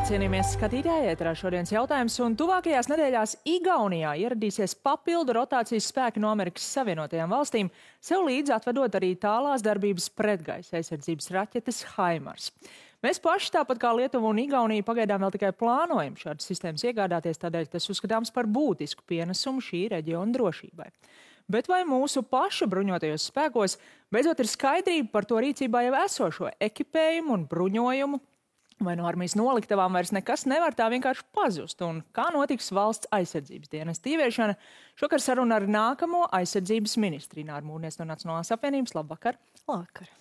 cienījamies skatītāji, ēterā šodienas jautājums, un tuvākajās nedēļās Igaunijā ieradīsies papildu rotācijas spēki no Amerikas Savienotajām valstīm, sev līdzi atvedot arī tālās darbības pretgaisa aizsardzības raķetes HIMARS. Mēs paši, tāpat kā Lietuva un Igaunija, pagaidām vēl tikai plānojam šādas sistēmas iegādāties, tādēļ tas uzskatāms par būtisku pienesumu šī reģiona drošībai. Bet vai mūsu pašu bruņotajos spēkos beidzot ir skaidrība par to rīcībā jau esošo ekipējumu un bruņojumu? Vai no armijas noliktavām vairs nekas nevar tā vienkārši pazust? Un kā notiks valsts aizsardzības dienesta ieviešana? Šokar saruna ar nākamo aizsardzības ministri Ināru Mūrnieci no Nacionālās apvienības. Labvakar! Labvakar!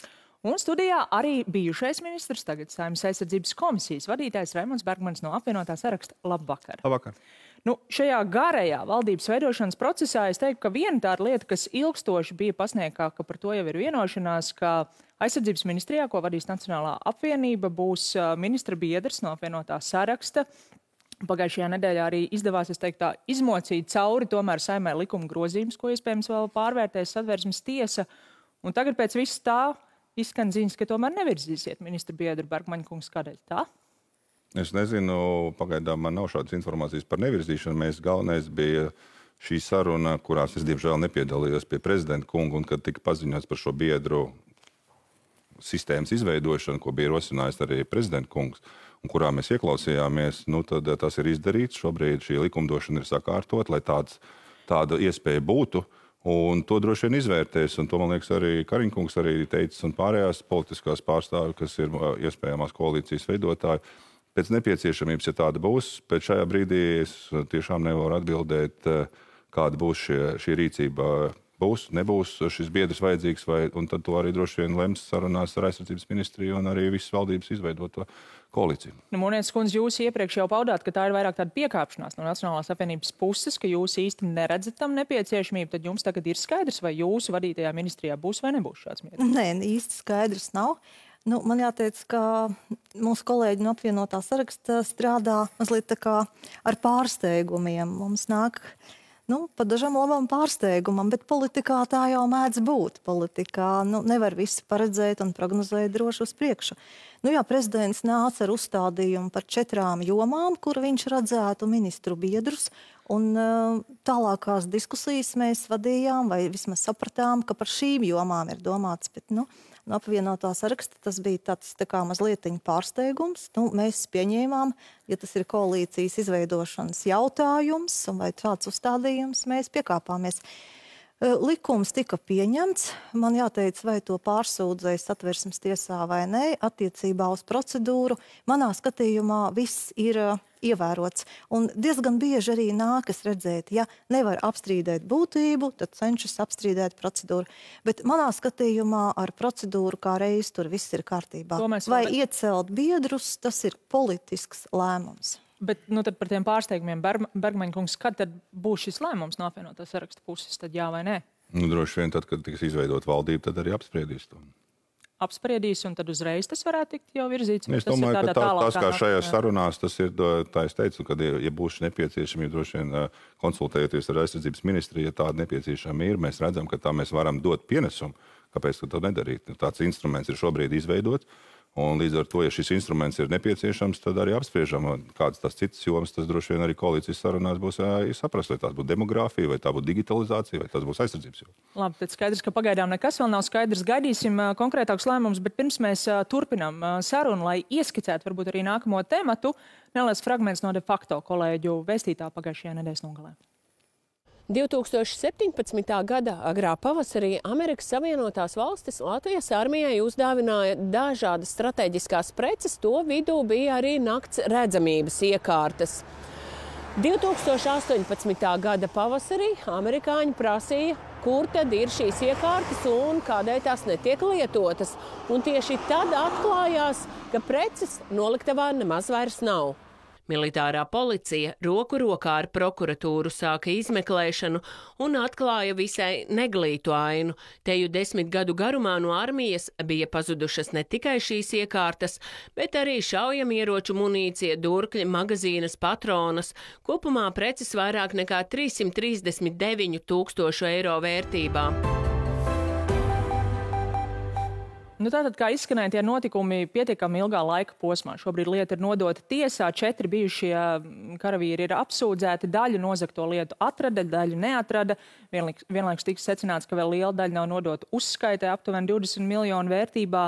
Un studijā arī bijušais ministrs, tagad Saeimas aizsardzības komisijas vadītājs Raimonds Bergmanis no apvienotā saraksta. Labvakar! Labvakar! Šajā garajā valdības veidošanas procesā es teiktu, ka viena tāda lieta, kas ilgstoši bija pasniegtā, ka par to jau ir vienošanās, ka aizsardzības ministrijā, ko vadīs Nacionālā apvienība, būs ministra biedrs no apvienotā saraksta. Pagājušajā nedēļā arī izdevās, es teiktu, tā izmocīt cauri tomēr Saeimai likuma grozījumus, ko iespējams vēl pārvērtēs Satversmes tiesa. Un tagad pēc viss tā izskan ziņas, ka tomēr nevirzīsiet ministra biedru Bergmaņa kungs. Kādēļ tā? Es nezinu, pagaidām man nav šādas informācijas par nevirzīšanu. Galvenais bija šī saruna, kurās es diemžēl nepiedalījos pie prezidenta kunga, un kad tika paziņots par šo biedru sistēmas izveidošanu, ko bija rosinājis arī prezidenta kungs, un kurā mēs ieklausījāmies, tad tas ir izdarīts. Šobrīd šī likumdošana ir sakārtot, lai tāda iespēja būtu. Un to droši vien izvērtēs, un to, man liekas, arī Kariņkungs arī teicis, un pārējās politiskās pārstāvi, kas ir iespējamās koalīcijas veidotāji. Pēc nepieciešamības, ja tāda būs, pēc šajā brīdī es tiešām nevaru atbildēt, kāda būs šī rīcība. Būs, nebūs šis biedrs vajadzīgs, un tad to arī droši vien lems sarunās ar aizsardzības ministriju un arī visas valdības izveidoto koalīciju. Mūrnieces kundze, jūs iepriekš jau paudāt, ka tā ir vairāk tāda piekāpšanās no Nacionālās apvienības puses, ka jūs īsti neredzat tam nepieciešamību, tad jums tagad ir skaidrs, vai jūsu vadītajā ministrijā būs vai nebūs šāds mieris? Nē, īsti skaidrs nav. Man jāteic, ka mūsu kolēģi no apvienotā saraksta strādā mazliet tā kā ar pārsteigumiem. Mums nāk pa dažam labam pārsteigumam, bet politikā tā jau mēdz būt. Politikā nevar visu paredzēt un prognozēt droši uz priekšu. Prezidents nāca ar uzstādījumu par 4 jomām, kur viņš redzētu ministru biedrus, un tālākās diskusijas mēs vadījām, vai vismaz sapratām, ka par šīm jomām ir domāts, bet no apvienotā saraksta tas bija tāds tā kā mazlietiņa pārsteigums. Mēs pieņēmām, ja tas ir koalīcijas izveidošanas jautājums, un vai tāds uzstādījums, mēs piekāpāmies. Likums tika pieņemts. Man jāteic, vai to pārsūdzēja Satversmes tiesā vai nē, attiecībā uz procedūru. Manā skatījumā viss ir ievērots. Un diezgan bieži arī nākas redzēt, ja nevar apstrīdēt būtību, tad cenšas apstrīdēt procedūru. Bet manā skatījumā ar procedūru kā reiz tur viss ir kārtībā. Vai iecelt biedrus, tas ir politisks lēmums. Bet tad par tiem pārsteigumiem, Bergmaņa kungs, kad tad būs šis lēmums no apvienotā saraksta puses, tad jā vai nē? Droši vien tad, kad tiks izveidot valdību, tad arī apspriedīs to. Apspriedīs, un tad uzreiz tas varētu tikt jau virzīts? Es domāju, ka tas, kā šajās sarunās, tas ir, tā es teicu, kad, ja būs nepieciešami, droši vien konsultējoties ar aizsardzības ministriju, ja tāda nepieciešama ir, mēs redzam, ka tā mēs varam dot pienesumu. Kāpēc to nedarīt? Tāds instruments ir šobrīd izveidots. Un līdz ar to, ja šis instruments ir nepieciešams, tad arī apspriežam, kādas tās citas jomas, tas droši vien arī koalīcijas sarunās būs jāsaprast, vai tās būtu demogrāfija, vai tā būtu digitalizācija, vai tas būs aizsardzības joma. Labi, tad skaidrs, ka pagaidām nekas vēl nav skaidrs. Gaidīsim konkrētākus lēmumus, bet pirms mēs turpinām sarunu, lai ieskicētu varbūt arī nākamo tematu, neliels fragments no de facto kolēģu vēstītā pagājušajā nedēļas nogalē. 2017. gada agrā pavasarī Amerikas Savienotās valstis Latvijas armijai uzdāvināja dažādas strateģiskās preces, to vidū bija arī nakts redzamības iekārtas. 2018. gada pavasarī amerikāņi prasīja, kur tad ir šīs iekārtas un kādēļ tās netiek lietotas. Un tieši tad atklājās, ka preces noliktavā nemaz vairs nav. Militārā policija roku rokā ar prokuratūru sāka izmeklēšanu un atklāja visai neglītu ainu. Teju 10 gadu garumā no armijas bija pazudušas ne tikai šīs iekārtas, bet arī šaujamieroču munīcija, durkļi, magazīnas, patronas. Kopumā preces vairāk nekā 339 000 eiro vērtībā. Nu, tātad, kā izskanēja tie notikumi pietiekami ilgā laika posmā. Šobrīd lieta ir nodota tiesā, 4 bijušie karavīri ir apsūdzēti, daļu nozagto lietu atrada, daļu neatrada. Vienlaikus tika secināts, ka vēl liela daļa nav nodota uzskaitē, aptuveni 20 miljonu vērtībā.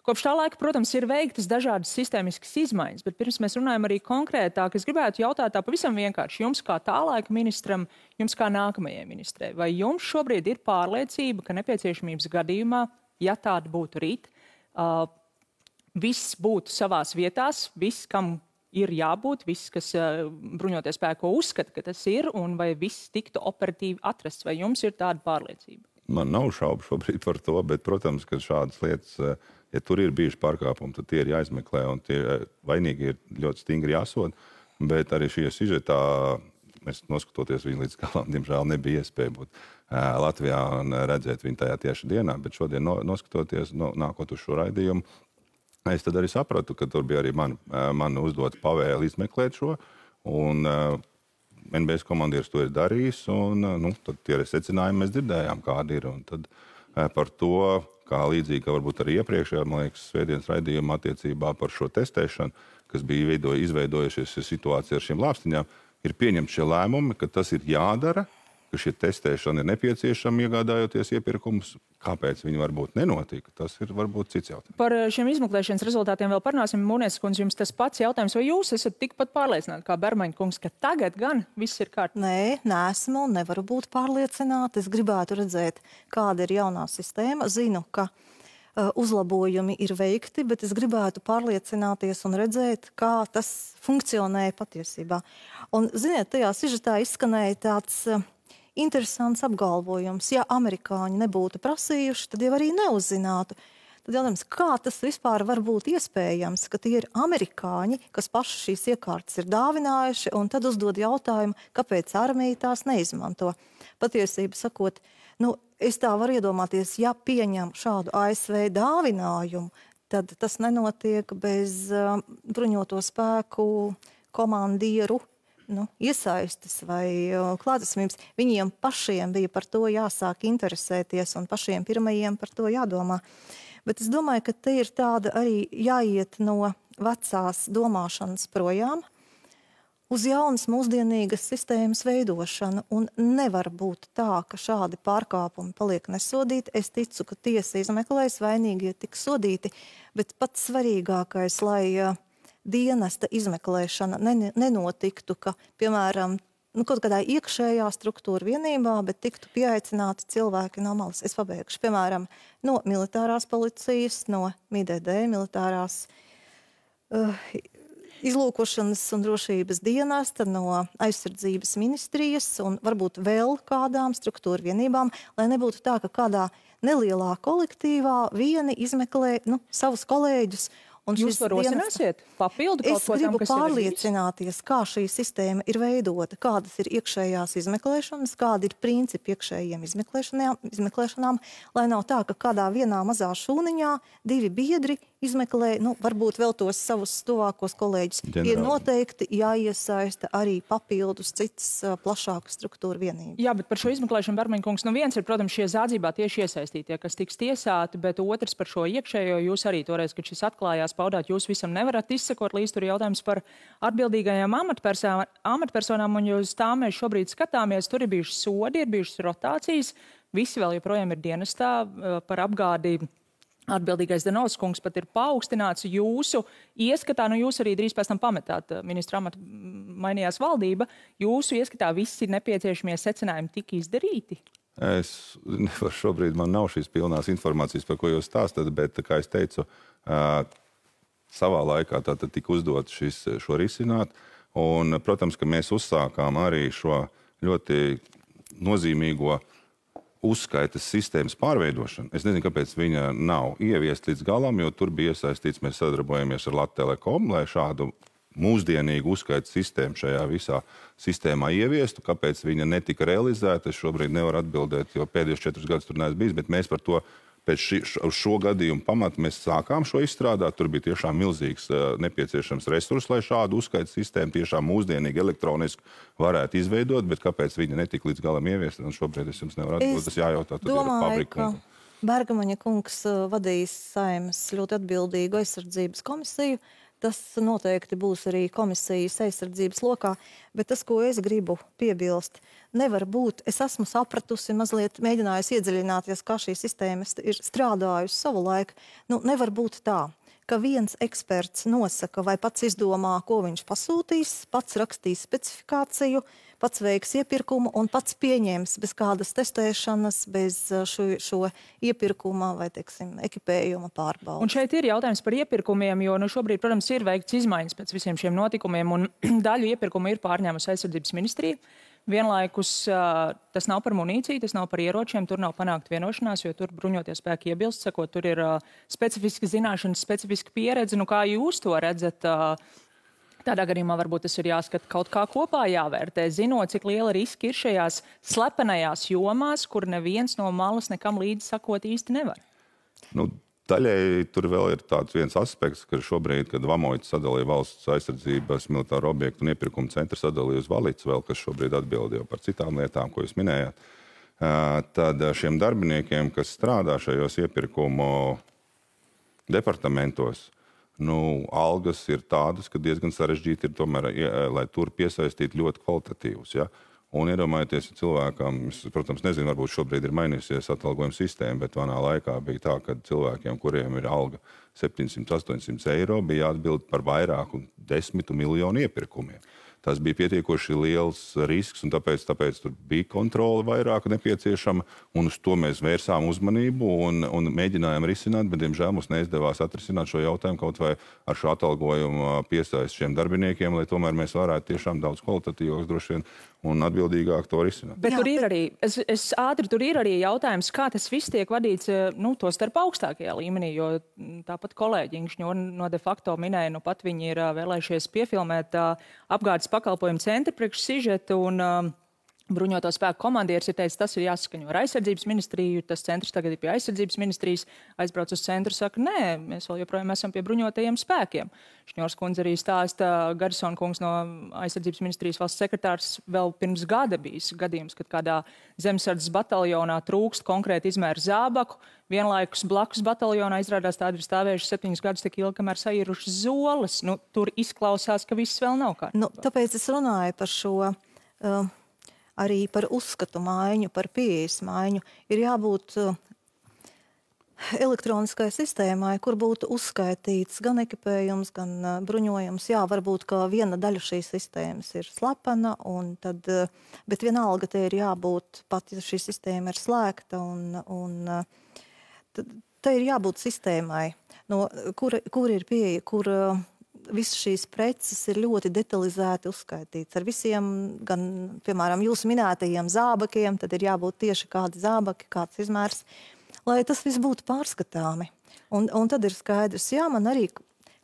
Kopš tā laika, protams, ir veiktas dažādas sistēmiskas izmaiņas, bet pirms mēs runājam arī konkrētāk, es gribētu jautāt tā pavisam vienkārši jums kā tā laika ministram, jums kā nākamajai ministrei. Vai jums šobrīd ir pārliecība, ka nepieciešamības gadījumā, ja tāda būtu rīt, viss būtu savās vietās, viss, kam ir jābūt, viss, kas bruņoties spēko uzskata, ka tas ir, un vai viss tiktu operatīvi atrasts, vai jums ir tāda pārliecība? Man nav šaubu šobrīd par to, bet, protams, ka šādas lietas, ja tur ir bijuši pārkāpumi, tad tie ir jāizmeklē, un tie vainīgi ir ļoti stingri jāsod, bet arī šie sižetā, mēs noskatoties viņu līdz galam, diemžēl nebija iespēja būt Latvijā un redzēt viņu tajā tieši dienā, bet šodien noskatoties, nākot uz šo raidījumu, es tad arī sapratu, ka tur bija arī man uzdot pavēli izmeklēt šo, un NBS komandieris to ir darījis, un tad tie secinājumi mēs dzirdējām, kādi ir, un tad par to, kā līdzīgi, ka varbūt arī iepriekšējā, man liekas, svētdienas raidījumā attiecībā par šo testēšanu, kas bija izveidojušies situācija ar šīm lāpstiņām, ir pieņemti šie lēmumi, ka tas ir jādara, ka šie testēšana ir nepieciešama, iegādājoties iepirkumus. Kāpēc viņi varbūt nenotika, tas ir varbūt cits jautājums. Par šiem izmeklēšanas rezultātiem vēl parunāsim. Mūnies kundze, jums tas pats jautājums, vai jūs esat tikpat pārliecināti kā Bermaņa kungs, ka tagad gan viss ir kārtībā? Nē, neesmu un nevaru būt pārliecināta. Es gribētu redzēt, kāda ir jaunā sistēma. Zinu, ka uzlabojumi ir veikti, bet es gribētu pārliecināties un redzēt, kā tas funkcionēja patiesībā. Un, ziniet, tajā sižetā izskanēja tāds interesants apgalvojums. Ja amerikāņi nebūtu prasījuši, tad jau arī neuzzinātu. Tad jautājums, kā tas vispār var būt iespējams, ka tie ir amerikāņi, kas paši šīs iekārtas ir dāvinājuši, un tad uzdod jautājumu, kāpēc armija tās neizmanto. Patiesība sakot, es tā varu iedomāties, ja pieņem šādu ASV dāvinājumu, tad tas nenotiek bez bruņoto spēku komandieru iesaistes vai klātesamības. Viņiem pašiem bija par to jāsāk interesēties un pašiem pirmajiem par to jādomā. Bet es domāju, ka te ir tāda arī jāiet no vecās domāšanas projām uz jaunas mūsdienīgas sistēmas veidošanu. Un nevar būt tā, ka šādi pārkāpumi paliek nesodīti. Es ticu, ka tiesa izmeklēs, vainīgie tiks sodīti, bet pats svarīgākais, lai dienesta izmeklēšana nenotiktu, ka, piemēram, kaut kādā iekšējā struktūra vienībā, bet tiktu pieaicināti cilvēki no malas. Es pabeigšu, piemēram, no militārās policijas, no MIDD, militārās izlūkošanas un drošības dienesta, no aizsardzības ministrijas un varbūt vēl kādām struktūra vienībām, lai nebūtu tā, ka kādā nelielā kolektīvā vieni izmeklē savus kolēģus. Jūs to rosināsiet? Papildu kaut ko tam, kas ir? Es gribu pārliecināties, kā šī sistēma ir veidota, kādas ir iekšējās izmeklēšanas, kādi ir principi iekšējiem izmeklēšanām, lai nav tā, ka kādā vienā mazā šūniņā 2 biedri izmeklē, varbūt vēl tos savus tuvākos kolēģus. Ir noteikti jāiesaista arī papildus citas plašākas struktūra vienības. Jā, bet par šo izmeklēšanu, Bermaņa kungs, viens ir, protams, šie zādzībā tieši iesaistītie, kas tiks tiesāti, bet otrs par šo iekšējo, jūs arī toreiz, kad šis atklājās, paudāt, jūs visam nevarat izsekot līdz tur jautājums par atbildīgajām amatpersonām, un uz tām mēs šobrīd skatāmies, tur ir bijušas sodi, ir bijušas rotācijas, visi vēl joprojām ir dienestā par apgādi. Atbildīgais Danovs kungs pat ir paaugstināts jūsu ieskatā, jūs arī drīz pēc tam pametāt ministra amatu, mainījās valdība, jūsu ieskatā visi nepieciešamie secinājumi tika izdarīti? Es nevaru šobrīd, man nav šīs pilnās informācijas, par ko jūs stāstat, bet, kā es teicu, savā laikā tātad tika uzdot šo risināt, un, protams, ka mēs uzsākām arī šo ļoti nozīmīgo uzskaitas sistēmas pārveidošanu. Es nezinu, kāpēc viņa nav ieviest līdz galam, jo tur bija iesaistīts, mēs sadarbojamies ar Lattelekom, lai šādu mūsdienīgu uzskaitas sistēmu šajā visā sistēmā ieviestu. Kāpēc viņa netika realizēta, es šobrīd nevaru atbildēt, jo pēdējos 4 gadus tur neesmu bijis, bet mēs par to pēc šo gadījumu pamatu mēs sākām šo izstrādāt. Tur bija tiešām milzīgs nepieciešams resurs, lai šādu uzskaitas sistēmu tiešām mūsdienīgi elektroniski varētu izveidot, bet kāpēc viņa netika līdz galam ieviesta, un šobrīd es jums nevaru atbildēt, tas jājautā, tad ir fabrika. Bergamaņa kungs vadīs Saeimas ļoti atbildīgu aizsardzības komisiju. Tas noteikti būs arī komisijas aizsardzības lokā, bet tas, ko es gribu piebilst, nevar būt, es esmu sapratusi, mazliet mēģinājusi iedziļināties, kā šī sistēma ir strādājusi savu laiku. Nevar būt tā, ka viens eksperts nosaka vai pats izdomā, ko viņš pasūtīs, pats rakstīs specifikāciju, pats veiks iepirkumu un pats pieņems bez kādas testēšanas, bez šo iepirkuma vai, teiksim, ekipējuma pārbaudas. Un šeit ir jautājums par iepirkumiem, jo šobrīd, protams, ir veikts izmaiņas pēc visiem šiem notikumiem, un daļu iepirkumu ir pārņēmusi aizsardzības ministrija. Vienlaikus tas nav par munīciju, tas nav par ieročiem, tur nav panākt vienošanās, jo tur bruņotie spēki iebilst, sakot, tur ir specifiski zināšanas, specifiski pieredze. Kā jūs to redzat? Tādā gadījumā varbūt tas ir jāskat kaut kā kopā jāvērtē, zinot, cik liela riska ir šajās slepenajās jomās, kur neviens no malas nekam līdzi sakot īsti nevar. Daļēji tur vēl ir tāds viens aspekts, ka šobrīd, kad Vamoits sadalīja valsts aizsardzības militāro objektu un iepirkumu centru sadalīja uz Valicu vēl, kas šobrīd atbild jau par citām lietām, ko jūs minējāt, tad šiem darbiniekiem, kas strādā šajos iepirkumu departamentos, algas ir tādas, ka diezgan sarežģīti ir tomēr, lai tur piesaistītu ļoti kvalitatīvus. Ja? Un iedomājieties, ja cilvēkam, protams, nezinu, varbūt šobrīd ir mainījusies atalgojuma sistēma, bet manā laikā bija tā, ka cilvēkiem, kuriem ir alga 700–800 eiro, bija jāatbild par vairāku 10 miljonu iepirkumiem. Tas bija pietiekoši liels risks, un tāpēc tur bija kontrole vairāk nepieciešama, un uz to mēs vērsām uzmanību un mēģinājām risināt, bet, diemžēl, mums neizdevās atrisināt šo jautājumu kaut vai ar šo atalgojumu piesaisti šiem darbiniekiem, lai tomēr mēs varētu tiešām daudz kvalitatīvāks droši vien un atbildīgāk to risināt. Bet tur ir arī, tur ir arī jautājums, kā tas viss tiek vadīts, to starp augstākajā līmenī, jo tāpat kolēģi Ingšņo no de facto minēja, pat viņi ir vēlējušies piefilmēt apgādes pakalpojumu centru priekš sižetu, un bruņoto spēku komandieris ir teicis, tas ir jāsaskaņo ar aizsardzības ministriju, tas centrs tagad ir pie aizsardzības ministrijas, aizbrauc uz centru, saka, nē, mēs vēl joprojām esam pie bruņotajiem spēkiem. Šņors kundze arī stāsta, Garisona kungs no aizsardzības ministrijas valsts sekretārs vēl pirms gada bijis gadījums, kad kādā zemesardzes bataljonā trūkst konkrēti izmēru zābaku, vienlaikus blakus bataljonā izrādās tādi ir stāvējuši 7 gadus tik ilgi, kamēr saīrušas zoles. Tur izklausās, ka viss vēl nav kārtībā. Tāpēc es runāju par šo... Arī par uzskatu maiņu, par pieejas maiņu, ir jābūt elektroniskai sistēmai, kur būtu uzskaitīts gan ekipējums, gan bruņojums. Jā, varbūt, ka viena daļa šīs sistēmas ir slepena, bet vienalga te ir jābūt, pat ja šī sistēma ir slēgta, te ir jābūt sistēmai, kur ir pieeja, kur... Visas šīs preces ir ļoti detalizēti uzskaitīts. Ar visiem, gan, piemēram, jūsu minētajiem zābakiem, tad ir jābūt tieši kādi zābaki, kāds izmērs, lai tas viss būtu pārskatāmi. Un tad ir skaidrs, jā, man arī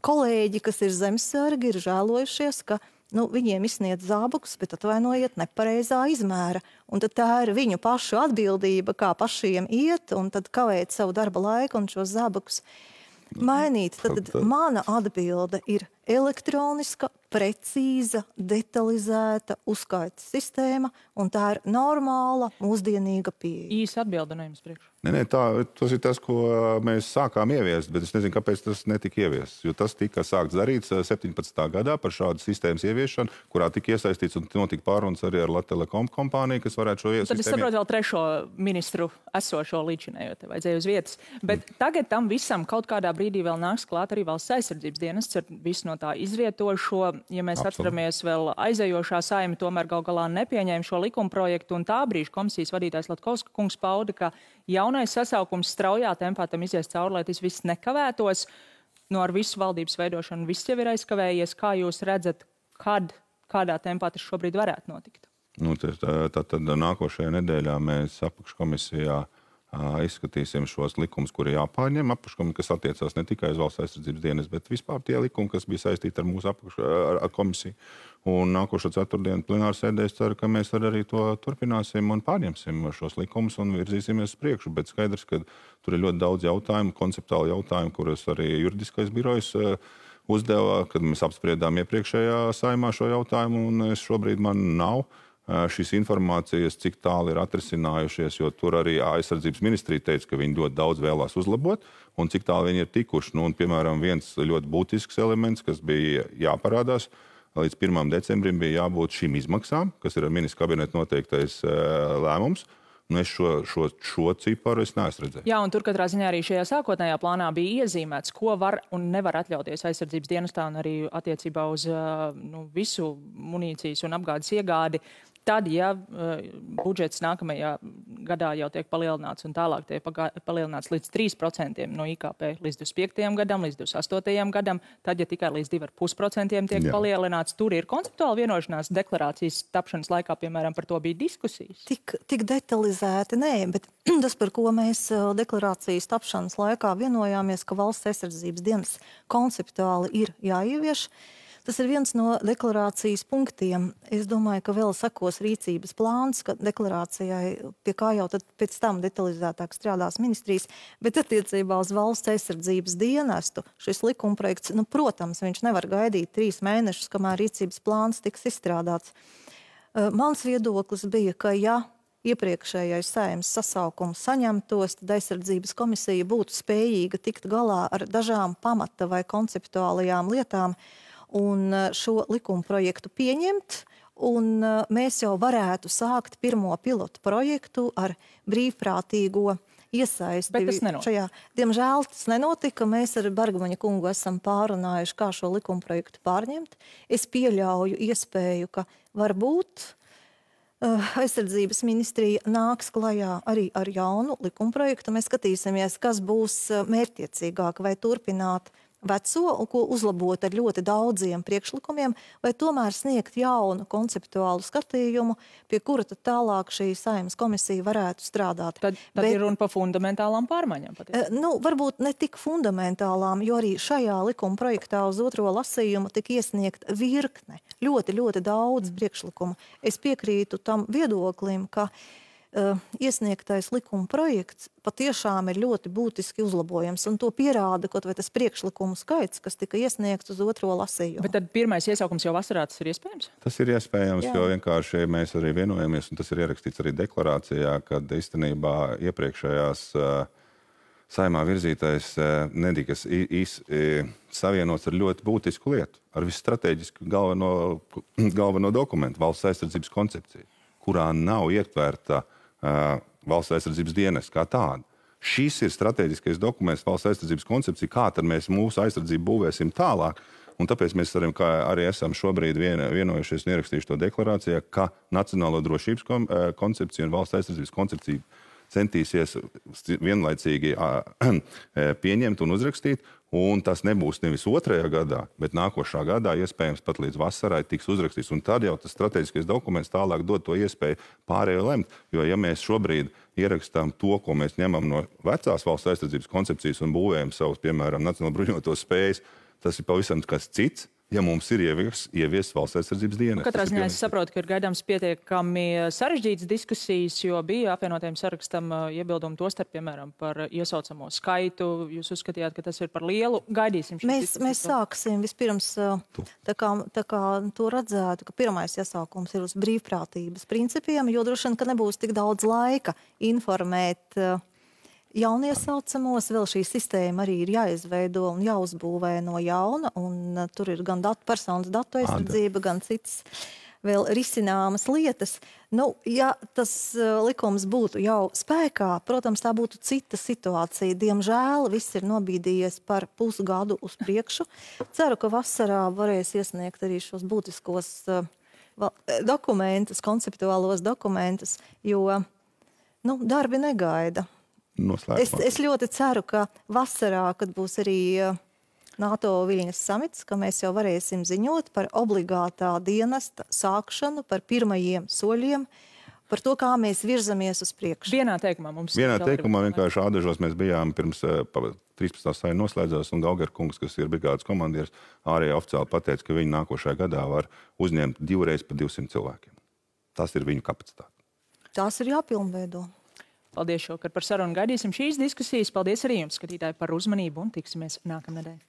kolēģi, kas ir zemesargi, ir žēlojušies, ka viņiem izsniedz zābakus, bet atvainojiet nepareizā izmēra. Un tad tā ir viņu pašu atbildība, kā pašiem iet, un tad kavēt savu darba laiku un šos zābakus mainīt. Tad mana atbilde ir elektroniska, precīza, detalizēta uzskaites sistēma, un tā ir normāla, mūsdienīga pieeja. Īsa atbilde no jums priekš. Nē, tas ir tas, ko mēs sākām ieviest, bet es nezinu, kāpēc tas netika ieviests. Jo tas tika sākts darīts 17. gadā par šādu sistēmas ieviešanu, kurā tika iesaistīts un notika pārunas arī ar Latelekom kompāniju, kas varētu šo sistēmu. Tad es saprotu vēl trešo ministru esošo līdzinējo, te vajadzēja uz vietas. Bet tagad tam visam kaut kādā brīdī vēl nāks klāt arī valsts aizsardzības dienests ar visu no tā izrietošo. Ja mēs atceramies vēl aizējošā Saeima, tomēr gal galā nepieņēma šo likumprojektu, un tā brīža komisijas vadītājs Latkovska kungs pauda, ka jaunais sasaukums straujā tempā tam izies cauri, lai tas viss nekavētos. Ar visu valdības veidošanu viss jau ir aizkavējies. Kā jūs redzat, kādā tempā tas šobrīd varētu notikt? Tad nākošajā nedēļā mēs apakškomisijā izskatīsim šos likumus, kuri jāpārņem apakškomisijā, kas attiecās ne tikai uz valsts aizsardzības dienas, bet vispār tie likumi, kas bija saistīti ar mūsu komisiju. Un nākošo ceturtdienu plenārsēdē es ceru, ka mēs arī to turpināsim un pārņemsim šos likumus un virzīsimies uz priekšu. Bet skaidrs, ka tur ir ļoti daudz jautājumu, konceptuāli jautājumu, kurus arī juridiskais birojs uzdeva, kad mēs apspriedām iepriekšējā Saeimā šo jautājumu, un šobrīd man nav šīs informācijas, cik tālu ir atrisinājušies, jo tur arī aizsardzības ministrija teica, ka viņi ļoti daudz vēlās uzlabot, un cik tālu viņi ir tikuši. Nu, un, piemēram, viens ļoti būtisks elements, kas bija jāparādās, līdz 1. decembrim bija jābūt šīm izmaksām, kas ir ministra kabineta noteiktais lēmums. Es šo ciparu neesmu redzējis. Jā, un tur katrā ziņā arī šajā sākotnējā plānā bija iezīmēts, ko var un nevar atļauties aizsardzības dienestā un arī attiecībā uz visu munīcijas un apgādes iegādi. Tad, ja budžets nākamajā gadā jau tiek palielināts un tālāk tiek palielināts līdz 3% no IKP līdz 25. gadam, līdz 28. gadam, tad, ja tikai līdz 2,5% tiek palielināts, tur ir konceptuāli vienošanās deklarācijas tapšanas laikā, piemēram, par to bija diskusijas. Tik detalizēti, nē, bet tas, par ko mēs deklarācijas tapšanas laikā vienojāmies, ka valsts aizsardzības dienas konceptuāli ir jāievieš. Tas ir viens no deklarācijas punktiem. Es domāju, ka vēl sekos rīcības plāns, ka deklarācijai, pie kā jau tad pēc tam detalizētāk strādās ministrijas, bet attiecībā uz valsts aizsardzības dienestu šis likumprojekts, protams, viņš nevar gaidīt 3 mēnešus, kamēr rīcības plāns tiks izstrādāts. Mans viedoklis bija, ka ja iepriekšējais Saeimas sasaukums saņemtos, tad aizsardzības komisija būtu spējīga tikt galā ar dažām pamata vai konceptuālajām lietām, un šo likuma projektu pieņemt, un mēs jau varētu sākt pirmo pilotu projektu ar brīvprātīgo iesaisti. Bet tas nenotika. Diemžēl tas nenotika. Mēs ar Bergmaņa kungu esam pārunājuši, kā šo likuma projektu pārņemt. Es pieļauju iespēju, ka varbūt aizsardzības ministrija nāks klajā arī ar jaunu likuma projektu. Mēs skatīsimies, kas būs mērķtiecīgāk, vai turpināt veco, ko uzlabot ar ļoti daudziem priekšlikumiem, vai tomēr sniegt jaunu konceptuālu skatījumu, pie kura tad tālāk šī Saeimas komisija varētu strādāt. Tad ir runa par fundamentālām pārmaiņām. Varbūt ne tik fundamentālām, jo arī šajā likuma projektā uz otro lasījumu tika iesniegt virkne, ļoti daudz priekšlikumu. Es piekrītu tam viedoklim, ka iesniegtais likuma projekts patiešām ir ļoti būtiski uzlabojams, un to pierāda kaut vai tas priekšlikumu skaits, kas tika iesniegts uz otro lasījumu. Bet tad pirmais iesaukums jau vasarā tas ir iespējams? Tas ir iespējams, jo vienkārši mēs arī vienojamies, un tas ir ierakstīts arī deklarācijā, kad īstenībā iepriekšējās Saeimā virzītais netikas savienots ar ļoti būtisku lietu, ar visu strateģisku galveno dokumentu, valsts aizsardzības koncepciju, kurā nav ietvērta valsts aizsardzības dienas kā tāda. Šis ir strateģiskais dokuments, valsts aizsardzības koncepcija, kā tad mēs mūsu aizsardzību būvēsim tālāk. Un tāpēc mēs arī esam šobrīd vienojušies un ierakstījuši to deklarācijā, ka Nacionālo drošības koncepcija un valsts aizsardzības koncepcija centīsies vienlaicīgi pieņemt un uzrakstīt, un tas nebūs nevis 2. gadā, bet nākošā gadā, iespējams pat līdz vasarai, tiks uzrakstīts. Un tad jau tas strateģiskais dokuments tālāk dod to iespēju pārējo lemt. Jo ja mēs šobrīd ierakstām to, ko mēs ņemam no vecās valsts aizsardzības koncepcijas un būvējam savus, piemēram, nacionālo bruņotos spējas, tas ir pavisam kas cits. Ja mums ir ievies valsts aizsardzības dienas. Katrā ziņā es saprotu, ka ir gaidāms pietiekami sarežģītas diskusijas, jo bija apvienotajam sarakstam iebildumi tostarp, piemēram, par iesaucamo skaitu. Jūs uzskatījāt, ka tas ir par lielu. Gaidīsim šīs diskusijas. Mēs sāksim vispirms, tā kā to redzētu, ka pirmais iesaukums ir uz brīvprātības principiem, jo droši vien, ka nebūs tik daudz laika informēt jauniesaucamos, vēl šī sistēma arī ir jāizveido un jāuzbūvē no jauna, un tur ir gan personas datu aizsardzība, gan citas vēl risināmas lietas. Ja tas likums būtu jau spēkā, protams, tā būtu cita situācija. Diemžēl viss ir nobīdījies par pusgadu uz priekšu. Ceru, ka vasarā varēs iesniegt arī šos būtiskos dokumentus, konceptuālos dokumentus, jo darbi negaida. Es ļoti ceru, ka vasarā, kad būs arī NATO Viļņas samits, ka mēs jau varēsim ziņot par obligātā dienesta sākšanu, par pirmajiem soļiem, par to, kā mēs virzamies uz priekšu. Vienā teikumā mums... Vienā teikumā vienkārši Ādažos mēs bijām pirms 13. saima noslēdzās, un Gauger kungs, kas ir brigādes komandieris, ārējā oficiāli pateica, ka viņi nākošajā gadā var uzņemt 2 reizes pa 200 cilvēkiem. Tas ir viņu kapacitāte. Tās ir jāpilnveido. Paldies šovakar par sarunu. Gaidīsim šīs diskusijas. Paldies arī jums, skatītāji, par uzmanību un tiksimies nākamnedēļ.